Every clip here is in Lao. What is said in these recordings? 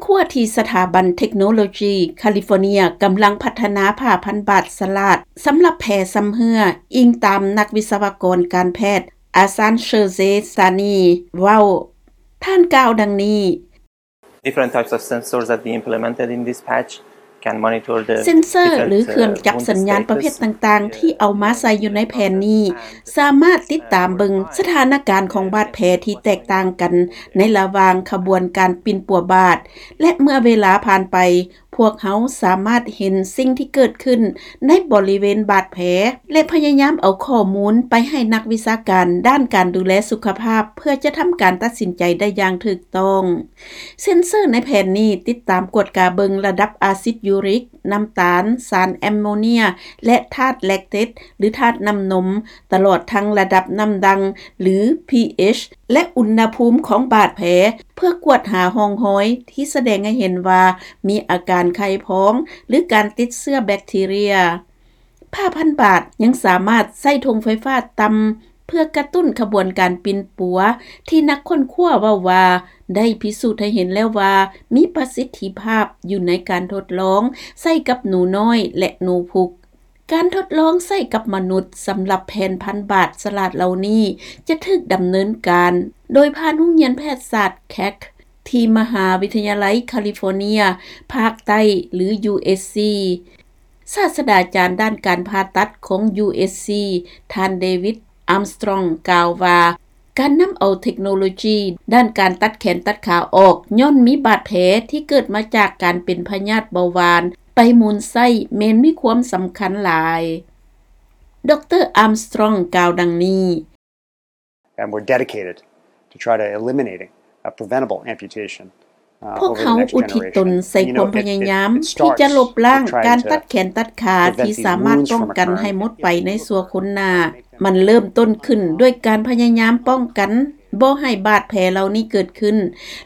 ຂົວທີ່ສະຖາບັນເທັກໂນໂລຈີຄາລິຟໍເນຍກຳລັງພັດທະນາຜ້າພັນບາດສະຫຼາດສຳລັບແຜຊຳເຮື້ອ, ອີງຕາມນັກວິສະວະກອນການແພດອາຊານເຊີເຊສານີເວົ້າ. ທ່ານກ່າວດັ່ງນີ້. Different types of sensors that we implemented in this patch can monitor the ເຊັນເຊີ ຫຼື ເຄື່ອງຈັບສັນຍານປະເພດຕ່າງໆ ທີ່ເອົາມາໃສ່ຢູ່ໃນແຜ່ນນີ້ ສາມາດຕິດຕາມເບິ່ງສະຖານະການຂອງບາດແຜທີ່ແຕກຕ່າງກັນໃນລະຫວ່າງຂະບວນການປິ່ນປົວບາດ ແລະ ເມື່ອເວລາຜ່ານໄປ, ພວກເຮົາສາມາດເຫັນສິ່ງທີ່ເກີດຂຶ້ນໃນບໍລິເວນບາດແຜ ແລະ ພະຍາຍາມເອົາຂໍ້ມູນໄປໃຫ້ນັກວິຊາການດ້ານການດູແລສຸຂະພາບ ເພື່ອຈະທຳການຕັດສິນໃຈໄດ້ຢ່າງຖືກຕ້ອງ. ເຊັນເຊີໃນແຜ່ນນີ້ຕິດຕາມກວດກາເບິ່ງລະດັບອາຊິດຢູຣິກ, ນ້ຳຕານ, ສານແອມໂມເນຍ ແລະ ທາດແລັກເຕດ ຫຼື ທາດນ້ຳນົມ, ຕະຫຼອດທັງລະດັບນ້ຳດ່າງ ຫຼື pH ແລະ ອຸນຫະພູມຂອງບາດແຜ ເພື່ອກວດຫາຮ່ອງຮອຍທີ່ສະແດງໃຫ້ເຫັນວ່າມີອາການໄຂ່ພອງ ຫຼື ການຕິດເຊື້ອແບັກທີເຣຍ. ຜ້າພັນບາດຍັງສາມາດໃຊ້ທົ່ງໄຟຟ້າຕ່ຳ ເພື່ອກະຕຸ້ນຂະບວນການປິ່ນປົວ ທີ່ນັກຄົ້ນຄວ້າເວົ້າວ່າໄດ້ພິສູດໃຫ້ເຫັນແລ້ວວ່າມີປະສິດທິພາບຢູ່ໃນການທົດລອງໃຊ້ກັບໜູນ້ອຍ ແລະ ໜູພຸກ. ການທົດລອງໃຊ້ກັບມະນຸດສຳລັບແຜ່ນພັນບາດສະຫຼາດເຫຼົ່ານີ້ ຈະຖືກດຳເນີນການໂດຍຜ່ານໂຮງຮຽນແພດສາດ Keck ທີ່ມະຫາວິທະຍາໄລຄາລິຟໍເນຍພາກໃຕ້ ຫຼື USC. ສາດສະດາຈານດ້ານການຜ່າຕັດຂອງ USC ທ່ານ David Armstrong ກ່າວວ່າ, ການນຳເອົາເທັກໂນໂລຈີດ້ານການຕັດແຂນຕັດຂາອອກ ຍ້ອນມີບາດແຜທີ່ເກີດມາຈາກການເປັນພະຍາດເບົາຫວານໄປໝູນໃຊ້ ແມ່ນມີຄວາມສຳຄັນຫຼາຍ. ດຣ. Armstrong ກ່າວດັ່ງນີ້. And we're dedicated to try to eliminating a preventable amputation. ພວກເຮົາອຸທິດຕົນໃສ່ຄວາມພະຍາຍາມທີ່ຈະລົບລ້າງການຕັດແຂນຕັດຂາທີ່ສາມາດປ້ອງກັນໃຫ້ໝົດໄປໃນຊົ່ວຄົນໜ້າ. ມັນເລີ່ມຕົ້ນຂຶ້ນດ້ວຍການພະຍາຍາມປ້ອງກັນບໍ່ໃຫ້ບາດແຜເຫຼົ່ານີ້ເກີດຂຶ້ນ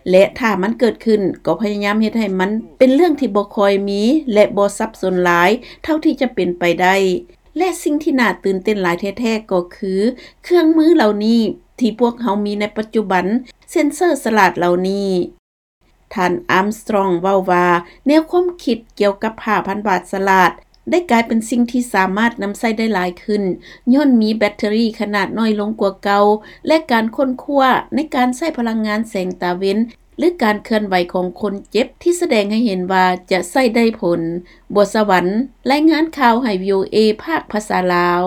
ແລະ ຖ້າມັນເກີດຂຶ້ນ ກໍພະຍາຍາມເຮັດໃຫ້ມັນເປັນເລື່ອງທີ່ບໍ່ຄ່ອຍມີ ແລະ ບໍ່ສັບສົນຫຼາຍເທົ່າທີ່ຈະເປັນໄປໄດ້. ແລະ ສິ່ງທີ່ໜ້າຕື່ນເຕັ້ນຫຼາຍແທ້ໆ ກໍຄືເຄື່ອງມືເຫຼົ່ານີ້ທີ່ພວກເຮົາມີໃນປັດຈຸບັນ, ເຊັນເຊີສະຫຼາດເຫຼົ່ານີ້. ທ່ານ Armstrong ເວົ້າວ່າ ແນວຄວາມຄິດກ່ຽວກັບຜ້າພັນບາດສະຫຼາດໄດ້ກາຍເປັນສິ່ງທີ່ສາມາດນຳໃຊ້ໄດ້ຫຼາຍຂຶ້ນ ຍ້ອນມີແບັດເຕີຣີຂະໜາດນ້ອຍລົງກວ່າເກົ່າ ແລະ ການຄົ້ນຄວ້າໃນການໃຊ້ພະລັງງານແສງຕາເວັນ ຫຼື ການເຄື່ອນໄຫວຂອງຄົນເຈັບທີ່ສະແດງໃຫ້ເຫັນວ່າຈະໃຊ້ໄດ້ຜົນ. ບົວສະຫວັນ ລາຍງານຂ່າວໃຫ້ VOA ພາກພາສາລາວ.